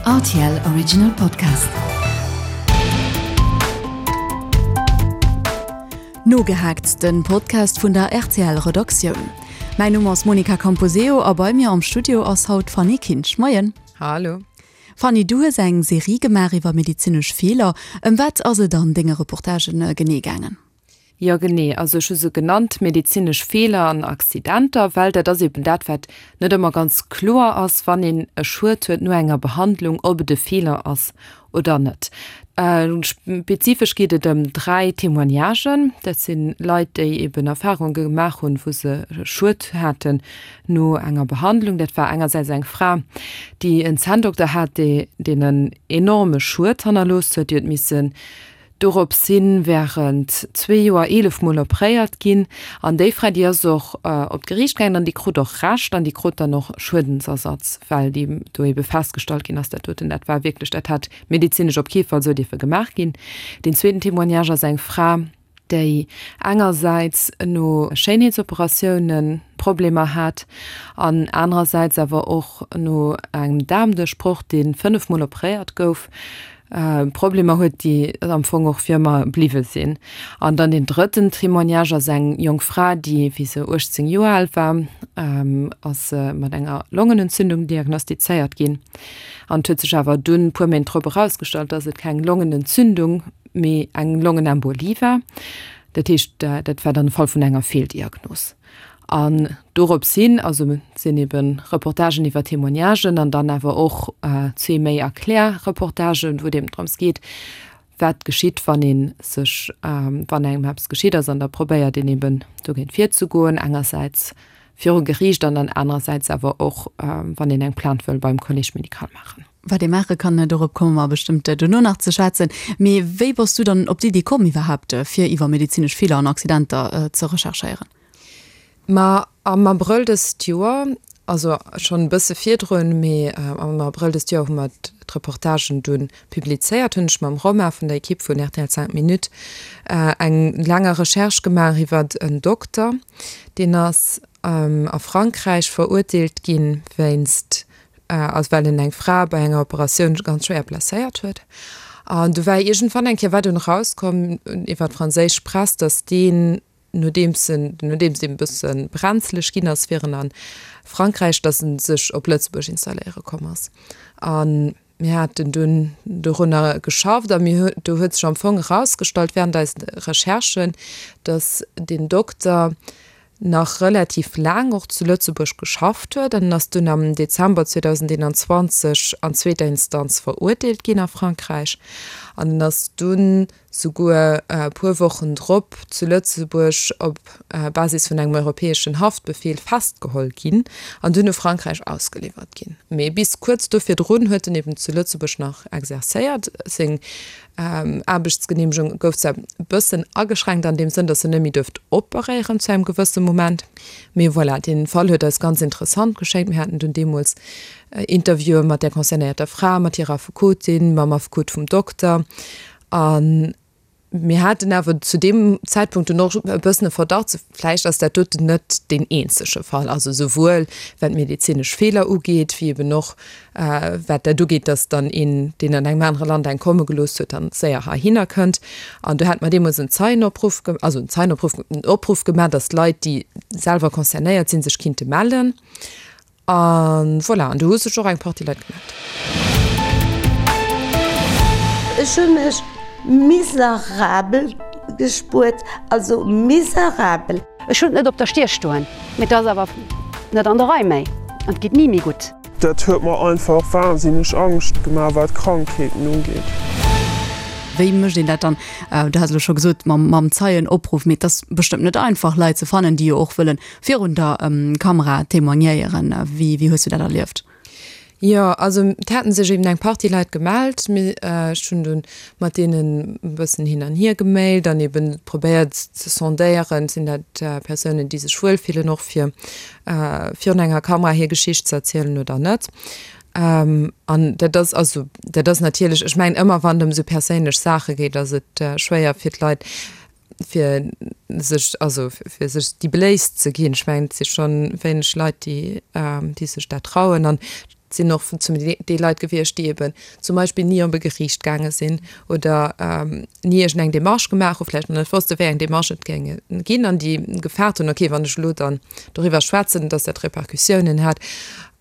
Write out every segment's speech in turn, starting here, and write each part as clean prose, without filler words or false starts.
Rtl Original Podcast. Nogehaakt, den Podcast vun der rtl Redaktioun. Mäin Numm ass Monica Camposeo a bei mir am Studio ass haut d'Fanny Kinsch. Moien. Hallo. Fanny, du hues eng Serie gemaach iwwer medezinesch Feeler. Ëm wat ass et an denge Reportagen genee gaangen? Jo genee, also ech hu se genannt medezinesch Feeler an Accidenter, well dat ass eben dat wat net ëmmer ganz kloer ass, wann een e Schued huet no enger Behandlung, ob et e Feeler ass oder net. Spezifesch geet et ëm 3 Témoignagen, dat si Leit déi eben Erfarunge gemaach hunn, wou se Schued haten no enger Behandlung. Dat war engersäits eng Fra, déi en Zänndokter hat, deen en enorme Schued hannerlooss huet, déi huet missen Dorops hin während zwee Joer 11 mol opréiert ginn an déi Fra déi ass och op d'Geriicht gaangen an déi krut och Recht an déi krut dann och Schuedensersatz, well déi do ebe festgestallt ginn ass, dat doten dat war wierklech, dat hätt medezinesch op kee Fall esou dierfe gemaach ginn. Deen zweeten Témoignage ass eng Fra, déi engersäits no Schéinheetsoperatioune Problemer hat an anerersäits awer och no engem Daarmduerchbroch, dee 5 mol opréiert gouf, Problemer huet, déi am Fong och fir ëmmer bliwwe sinn. An dann deen drëtten Témoignage ass eng jonk Fra, déi, wéi se 18 Joer al war, ass se mat enger Longenentzündung diagnostizéiert ginn. An et huet sech awer dunn e puer Méint drop erausgestallt, dass et keng Longenentzündung, mee eng Longenembolie war. Dat heescht, dat war dann e Fall vun enger Feeldiagnos. An dorops hin, also et sinn ebe Reportagen iwwer Témoignagen an dann awer och zwee méi Erklärreportagen, wou et eben drëms geet, wat geschitt, wann ee sech, wann engem eppes geschitt ass an da probéiert een eben dogéint virzegoen, engersäits viru Geriicht an dann anerersäits awer och, wann een eng Plainte wëll beim Collège médical maachen. Wat ee maache kann, dorop komme mer bestëmmt duerno nach ze schwätzen. Mee wéi bass du dann op d'Iddi komm iwwerhaapt, fir iwwer medezinesch Feeler an Accidenter ze recherchéieren? Ma am Abrëll dëst Joer, also schonn e bësse virdrun, mee am Abrëll dëst Joer hu mer d'Reportagen dunn publizéiert, hunn ech mam Romain vun der Ekipp vun rtl 5 Minutes eng langer Recherche gemaach iwwert en Dokter, deen ass a Frankräich verurteelt ginn wéinst also well en eng Fra bei enger Operatioun ganz schwéier blesséiert huet. An du war iergendwann eng Kéier war dunn erauskomm iwwer d'franséisch Press, datt deen, nodeems en, nodeems deen e bësse brenzeleg ginn ass, wier en a Frankräich, datt en sech op Lëtzebuerg installéiere komm ass. A mir haten dunn dorunner geschafft a mir hu, do huet sech am Fong erausgestallt während eisen Recherchen, datt deen Dokter nach relativ laang och zu Lëtzebuerg geschafft huet an en ass dunn am Dezember 2021 an zweeter Instanz verurteelt ginn a Frankräich an en ass dunn souguer e puer Wochen drop zu Lëtzebuerg op Basis vun engem europäeschen Haftbefeel festgeholl ginn an dunn u Frankräich ausgeliwwert ginn. Mee bis kuerz do virdrun huet en eben zu Lëtzebuerg nach exerzéiert. Seng Aarbechtsgeneemegung gouf zwar e bëssen ageschränkt an deem Sënn, datt en net méi duerft operéieren zu engem gewësse Moment, mee voilà, dee Fall huet eis ganz interessant geschéngt. Mir haten dunn deemools Interviewe mat där concernéierter Fra, mat hirer Affekotin, mam Affekot vum Dokter a mir haten awer zu deem Zäitpunkt dunn och e bëssen e Verdacht, Vläicht ass dat doten net deen eenzege Fall, also souwuel wat medezinesch Feeler ugeet, wéi eben och wat dat ugeet, datt dann een, deen an engem anere Land eng komme gelooss huet, dann séier heihinner kënnt. An do hate mer deemools en Zeienopruff, also en Zeienopruff, en Opruff gemaach, datt Leit, déi selwer concernéiert sinn, sech kinnte mellen. An voilà, an do hu sech och eng Partie Leit gemellt. Ech hu mech miserabel gespuert, also miserabel. Ech hunn et net op der Stier stoen, mee et ass awer net an der Rei méi an et geet ni méi gutt. Dat huet mer einfach wahnsinneg Angscht gemaach wat Krankheeten ugeet. Wéi mécht een dat dann? Du has elo scho gesot mam Zeienopruff, mee et ass bestëmmt net einfach Leit ze fannen, déi jo och wëllen virun der Kamera témoignéieren. Wéi wéi hues du dat erlieft? Jo, also et haten sech eben eng Partie Leit gemellt, mee ech hunn dunn mat deenen e bëssen hin an hier gemailt an eben probéiert ze sondéieren, sinn dat Persounen, déi sech wuel fillen och fir virun enger Kamera hir Geschicht ze erzielen oder net. An dat ass also dat ass natierlech, ech mengen ëmmer wann et ëm esou perséinlech Saache geet, ass et schwéier fir d'Leit, fir sech, also fir sech déi Bléisst ze ginn. Ech mengen, et si schonn wéineg Leit, déi, déi sech dat trauen. An. sinn och zum Deel Leit gewiescht, déi eben zum Beispill ni op e Geriicht gaange sinn oder ni iergendeng Demarche gemaach hu, vläicht nach net wosste wéi eng Demarche et géinge ginn an déi gefaart hunn, okay, wann ech elo dann doriwwer schwätzen, datt dat Repercussiounen hätt.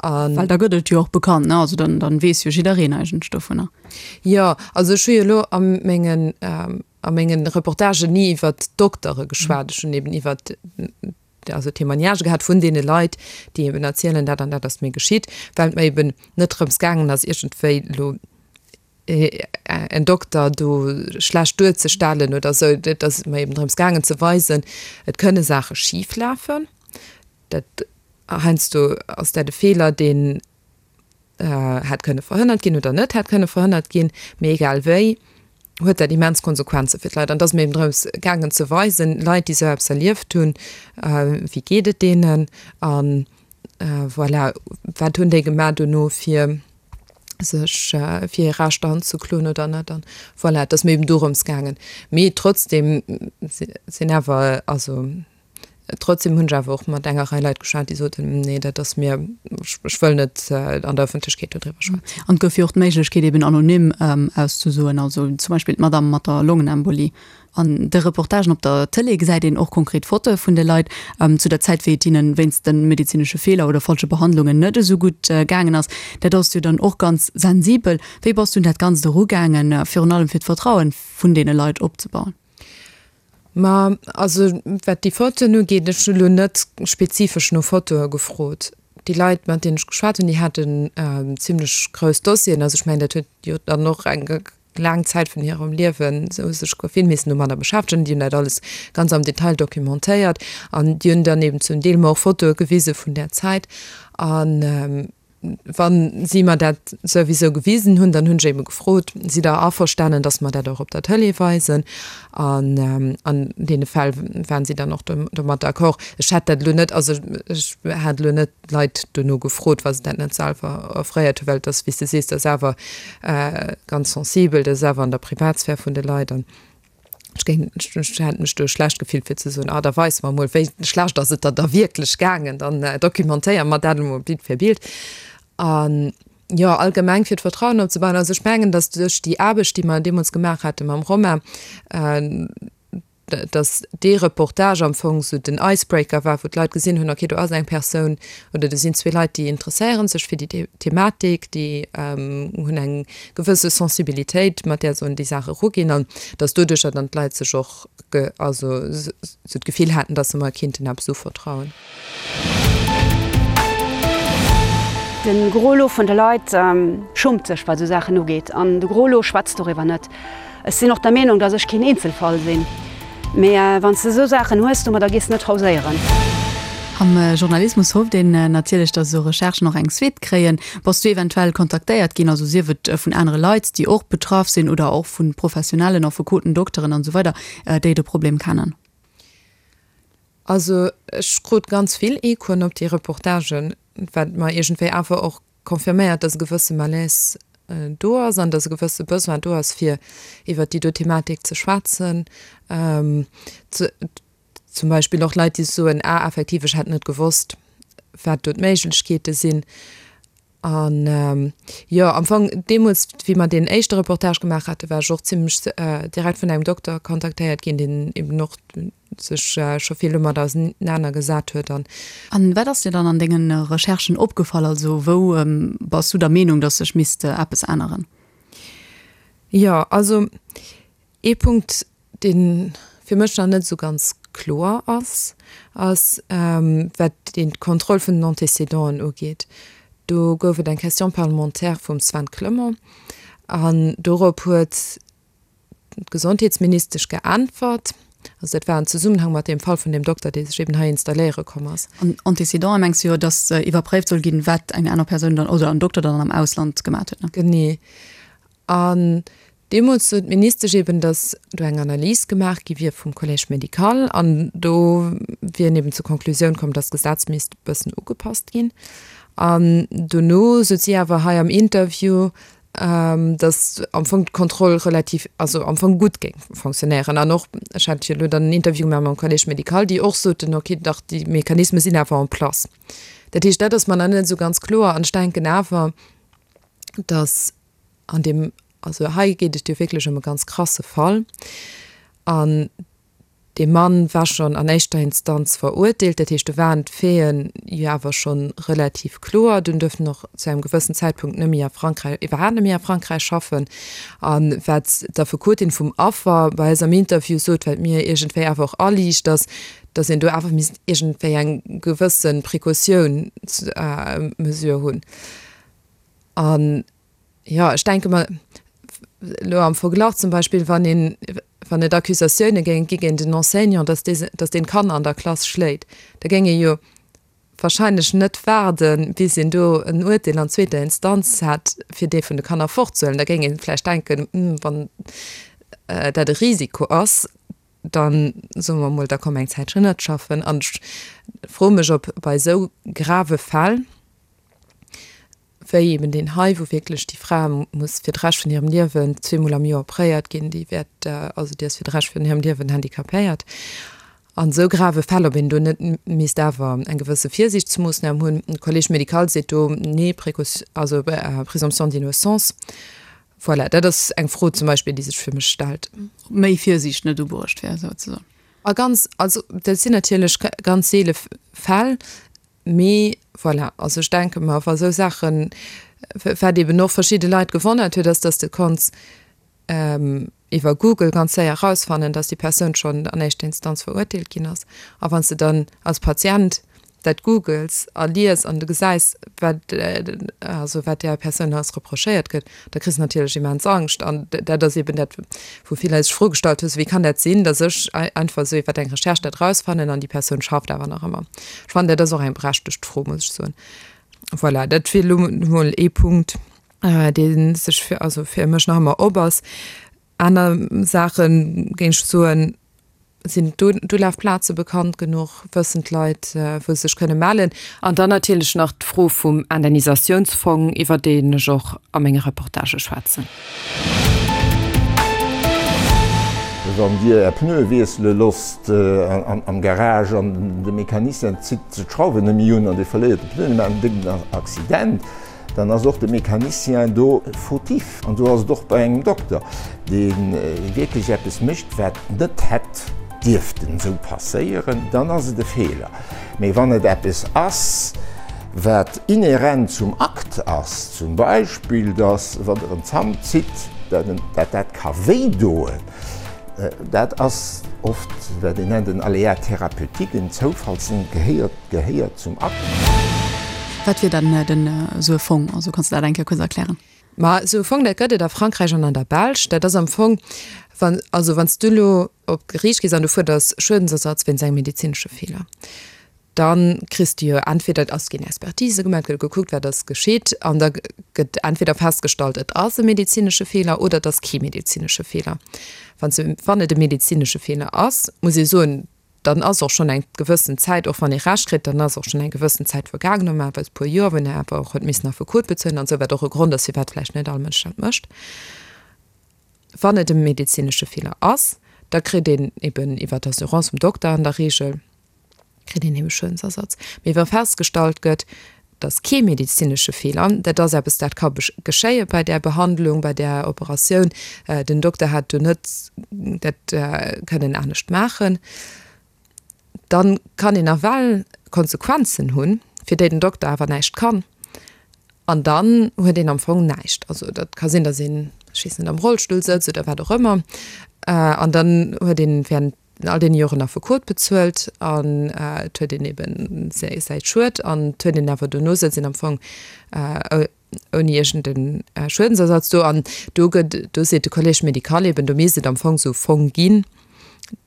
An. Well da gëtt et jo och bekannt, ne? Also dann, dann weess jo jiddereen eigentlech dovunner. Jo, also ech hu jo elo a mengen, a mengen Reportagen ni iwwert d'Doktere geschwat, ech hunn eben iwwert also Témoignagë gehat vun deene Leit, déi eben erzielen, dat an dat ass mir geschitt, well et mer eben net drëms gaangen ass, iergendwéi elo en Dokter do schlecht duerzestellen oder esou. Et ass mer eben drëms gaangen ze weisen, et kënne Saache schif lafen, dat heiansdo ass dat e Feeler, deen hätt kënne verhënnert ginn oder net hätt kënne verhënnert ginn, mee egal wéi huet dat immens Konsequenze fir d'Leit. An et ass mir eben drëms gaangen ze weisen, Leit, déi esou eppes erlieft hunn, wéi geet et deenen a voilà, wat hunn déi gemaach dono fir sech fir hir Rechter anzekloen oder net. An voilà, et ass mir eben dorëms gaangen. Mee trotzdem sinn awer, also Trotzdem hunn ech awer och mat enger Rei Leit geschwat, déi soten, Nee, dat ass mir, ech wëll net an der Ëffentlechkeet dodriwwer schwätzen. An et gouf jo och d'Méiglechkeet eben anonym auszesoen, also zum Beispill d'Madame mat der Longenembolie. An de Reportagen op der Tëlee gesäit een och konkret Fotoe vun de Leit zu der Zäit, wéi et hinnen wéinst de medezinesche Feeler oder falsche Behandlungen net esou gutt gaangen ass. Dat ass jo dann och ganz sensibel. Wéi bass du un dat Ganzt erugaangen, virun allem fir d'Vertrauen vun deene Leit opzebauen? Ma also wat déi Fotoen ugeet, ech hu lo net spezifesch no Fotoe gefrot. Déi Leit, mat deenen ech geschwat hunn, déi haten zimlech grouss Dossieren. Also ech mengen, dat huet jo dann och eng laang Zäit vun hirem Liewen, se hu sech vill missen domadder beschäftegen. Déi hunn dat alles ganz am Detail documentéiert an déi hunn dann eben zum Deel mer och Fotoe gewise vun där Zäit. An Wa si mer dat souwisou gewisen hunn, dann hunn ech ebe gefrot, Sidd Der averstanen, dass mer dat och op der Tëlee weisen? An an deene Fäll waren si dann och domat d'accord. Ech hätt dat elo net, also ech hat elo net d'Leit dono gefrot, wa se dat net selwer offréiert hunn, well et ass, wéi s de sees, dat ass awer ganz sensibel, dat ass awer an der Privatsphär vun de Leit. An Ech géing, ech hätt mech do schlecht gefillt fir ze soen, ah da weis mer emol, wéi schlecht ass et der da wierklech gaangen, dann dokumentéiere mer dat emol Bild fir Bild. An jo, allgemeng fir d'Vertrauen opzebauen, also ech mengen, datt duerch déi Aarbecht, déi mer deemools gemaach hate mam Romain, datt dee Reportage am Fong esou den Icebreaker war, wou d'Leit gesinn hunn, okay, do ass eng Persoun oder do sinn zwee Leit, déi interesséiere sech fir déi Thematik, déi hunn eng gewësse Sensibilitéit, mat där se un déi Saach eruginn an datt doduercher dann d'Leit sech och also sou d'Gefill haten, datt se mer kinnten eppes uvertrauen. De Gros lot vun de Leit schummt sech, wat esou Saachen ugeet, an de Gros lot schwätzt doriwwer net. Ech sinn och der Meenung, dass ech keen Eenzelfall sinn. Mee wann s de esou Saachen hues, domadder gees de net hauséieren. Am Journalismus hofft een natierlech, dass esou Recherchen och eng Suite kréien. Bass du eventuell kontaktéiert ginn, also sief et vun anere Leit, déi och betraff sinn oder och vu professionellen Affekoten, Dokteren an esou weider, déi de Problem kennen? Also ech krut ganz vill Echoen op déi Reportagen, wat mer iergendwéi awer och confirméiert, dass e gewësse Malaise do ass an dass e gewësse Besoin do ass, fir iwwert déi do Thematik ze schwätzen. Zum Beispill och Leit, déi soen, ah effektiv, ech hätt net gewosst, wat do d'Méiglechkeete sinn. An jo, am Fong deemools, wéi mer deen éischte Reportage gemaach haten, war ech och zimlech direkt vun engem Dokter kontaktéiert ginn, deen eben och sech scho vill domat ausenaner gesat huet an. An wat ass dir dann an dengen Recherchen opgefall? Also wou bass du der Meenung, dass sech misst eppes änneren? Jo, also ee Punkt, dee fir mech nach net esou ganz kloer ass, ass wat d'Kontroll vun den Antécédenten ugeet. Do gouf et eng Question parlementaire vum Sven Clement an dorop huet D'Gesondheetsministesch geäntwert, also dat war an Zesummenhang mat deem Fall vun deem Dokter, dee sech eben hei installéiere komm ass. An Antécédenten mengs du jo, datt iwwerpréift soll ginn, wat eng aner Persoun dann oder en Dokter dann am Ausland gemat huet, ne? Genee. An deemools sot d'Ministesch eben, datt do eng Analys gemaach gi wier vum Collège médical an do wier een eben zur Konklusioun komm, datt d'Gesetz misst e bëssen ugepasst ginn. An dono sot si awer hei am Interview. Datt am Fong d'Kontroll relativ, also am Fong gutt géing fonctionnéieren. An och, ech hat jo elo dann en Interview gemaach mam Collège médical, déi och soten, okay, dach déi Mechanisme sinn awer en place. Dat heescht, dat ass mer nach net esou ganz kloer. An ech denken awer, datt an deem, also hei geet et jo wierklech ëm e ganz krasse Fall. An Dee Mann war schonn an éischter Instanz verurteelt, dat heescht do waren d'Faiten jo awer scho relativ kloer. Dunn duerft en och zu engem gewëssen Zäitpunkt net méi a Frankräich, iwwerhaapt net méi a Frankräich schaffen. A wat d'Affekotin vum Affer bei eis am Interview sot, wat mir iergendwéi awer och aliicht, ass, datt een do awer misst iergendwéi eng gewësse Precautiounsmesure hunn. An Jo, ech denke mer, elo am Verglach zum Beispill, wann een, wann et Accusatioune géing gi géint en Enseignant, datt dee, datt deen d'Kanner an der Klass schléit, da géing ee jo wahrscheinlech net waarden, bis een do en Uerteel an zweeter Instanz hätt, fir dee vun de Kanner fortzehuelen. Da géing ee vläicht denken, Hm, wann dat e Risiko ass, da soe mer emol, da komm eng Zäitchen net schaffen. An ech froe mech, ob bei esou grave Fäll, wéi eben deen hei, wou wierklech déi Fra muss fir de Rescht vun hirem Liewen zweemol am Joer opréiert ginn, déi wäert, also déi ass fir de Rescht vun hirem Liewen handicapéiert. An esou grave Fäll, ob een do net misst awer eng gewësse Virsiichtsmoossnam hunn. De Collège médical seet do, nee, Précaution, also Présomption d'innocence. Voilà, dat ass eng Fro zum Beispill, déi sech fir mech stellt. Ob méi Virsiicht net ubruecht wär, souzesoen. A ganz, also dat sinn natierlech ganz seele Fäll. Mee voilà, also ech denke mer, wa sou Saachen, wat eeben och verschidde Leit gewonnert huet, ass, dass de konns iwwer Google ganz séier erausfannen, dass déi Persoun schonn an éischter Instanz verurteelt ginn ass. A wann s de dann als Patient dat googles a lies an du gesäis, wat also wat där Persoun alles reprochéiert gëtt, da kriss de natierlech immens Angscht. An dat ass eeben dat, wou vill Leit sech d'Fro gestallt hunn, Wéi kann dat sinn, datt ech einfach esou iwwer eng Recherche dat erausfannen an déi Persoun schafft awer nach ëmmer? Ech fannen, dat ass och eng berechtegt Fro, muss ech soen. Voilà, dat wier elo emol ee Punkt, dee sech fir, also fir mech nach ëmmer op ass. Aner Saache géing ech soen, Sinn d'Ulafplaze bekannt genuch? Wëssen d'Leit, wou se sech kënne mellen? An dann natierlech nach d'Fro vum Indemnisatiounsfong, iwwer deen ech och a menge Reportagë schwätzen. Wann Dir Är Pneue wiessele loosst am Garage an de Mecanicien zitt d'Schrauwen net méi un an Dir verléiert de Pneu, Dir maacht en décken Accident, Dann ass och de Mecanicien do fautif. An esou ass et och bei engem Dokter, dee wierklech eppes mécht, wat net hätt dierften esou passéieren, dann ass et e Feeler. Mee wann et eppes ass, wat inhärent zum Akt ass, zum Beispill, dass, wann Der en Zant zitt, dat dat ka wéidoen, dat ass oft, wat een nennt en Aléa thérapeutique, en Zoufallsding, gehéiert Gehéiert zum Akt. Wat wier dann den esou e Fong? Also kanns de dat eng Kéier kuerz erklären? Ma esou e Fong, dat gëtt et a Frankräich an an der Belsch. Dat ass am Fong, wann, also wann s du elo op d'Geriicht gees an du fuerders Schuedensersatz wéinst engem medezinesche Feeler, da kriss du jo entweder, et ass ginn Expertise gemaach, et gëtt gekuckt, wat ass geschitt, an da gëtt entweder festgestallt, et ass e medezinesche Feeler oder et ass kee medezinesche Feeler. Wann s, wann et e medezinesche Feeler ass, muss ee soen, dann ass och schonn eng gewëssen Zäit, och wann ee Recht kritt, dann ass och schonn eng gewëssen Zäit vergaangen, normalerweis e puer Joer, wou een awer och huet missen Affekot bezuelen an esou, wat och e Grond ass, firwat vläicht net all Mënsch dat mécht. Wann et e medezinesche Feeler ass, da kritt een eben iwwer d'Assurance vum Dokter an der Regel, kritt een ebe Schuedensersatz. Mee wa festgestallt gëtt, Et ass kee medezinesche Feeler. Dat ass eppes, dat ka geschéie bei där Behandlung, bei där Operatioun. Den Dokter hätt do net dat kënnen anescht maachen. Da kann een nawell Konsequenzen hunn, fir déi den Dokter awer näischt kann. An dann huet een am Fong näischt. Also dat ka sinn, datt een, ech weess net, am Rollstull sëtzt oder wat och ëmmer. An dann huet een während all deene Joren Affekot bezuelt an et huet een eben säi Schued an et huet een awer dono sëtzt een am Fong ouni iergend e Schuedensersatz do. An do gëtt, do seet de Collège médical eben, do misst et am Fong esou e Fong ginn,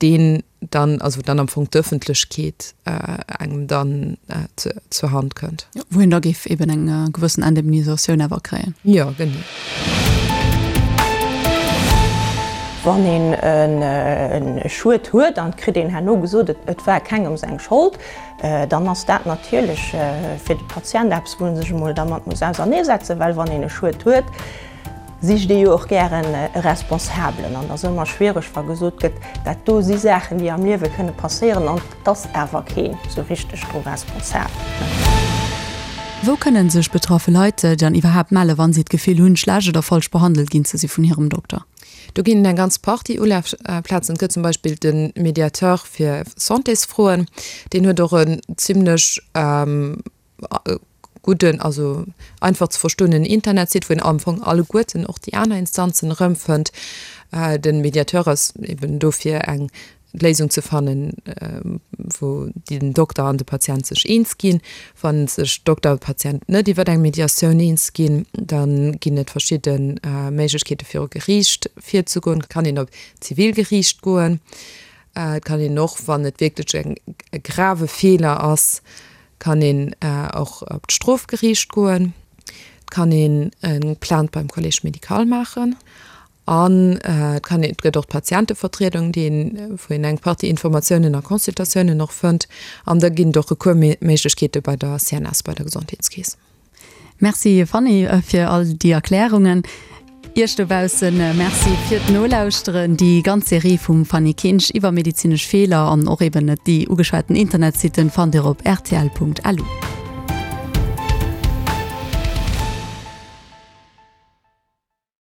deen dann, also wou dann am Fong d'Ëffentlechkeet engem dann zur Hand kënnt. Wou een da géif eben eng gewëssen Indemnisatioun awer kréien. Jo, genee. Wann een e Schued huet an et kritt een herno gesot, et war kengem seng Schold, dann ass dat natierlech fir de Patient eppes, wou e sech emol dermat muss auserneesetzen, well wann een e Schued huet. sicht ee jo och gären e Responsabelen. An et ass ëmmer schwiereg, wa gesot gëtt, dat do si Saachen, déi am Liewe kënne passéieren an et ass awer keen esou richteg dru responsabel. Wou kënnen sech betraffe Leit dann iwwerhaapt melle wann si d'Gefill hunn, schlecht oder falsch behandelt ginn ze si vun hirem Dokter? Do ginn et eng ganz Partie Ulafplazen. Et gëtt zum Beispill de Mediateur fir Santésfroen, deen huet och en zimlech gudden, also einfach ze verstoenen Internetsite, wou een am Fong alleguerten och déi aner Instanzen erëmfënnt. De Mediateur ass eben do fir eng Léisung ze fannen, wou den Dokter an de Patient sech eens ginn. Wa sech Dokter a Patient net iwwer eng Mediatioun eens ginn, da ginn et verschidde Méiglechkeete viru Geriicht virzegoen. Et kann een op d'Zivilgeriicht goen. Et kann een och, wann et wierklech e grave Feeler ass, kann een och op d'Strofgeriicht goen. Et kann een eng Plainte beim Collège médical maachen. An et kann een, et gëtt och d'Patientevertriedung, déi een, wou een eng Partie Informatiounen a Consultatiounen och fënnt. An da ginn et och Recoursméiglechkeete bei der CNS, bei der Gesondheetskeess. Merci Fanny fir all déi Erklärungen. Iech dobaussen Merci fir d'Nolauschteren. Déi ganz Serie vum Fanny Kinsch iwwer medezinesch Feeler an och eben déi ugeschwaten Internetsitten fannt Dir op rtl.lu.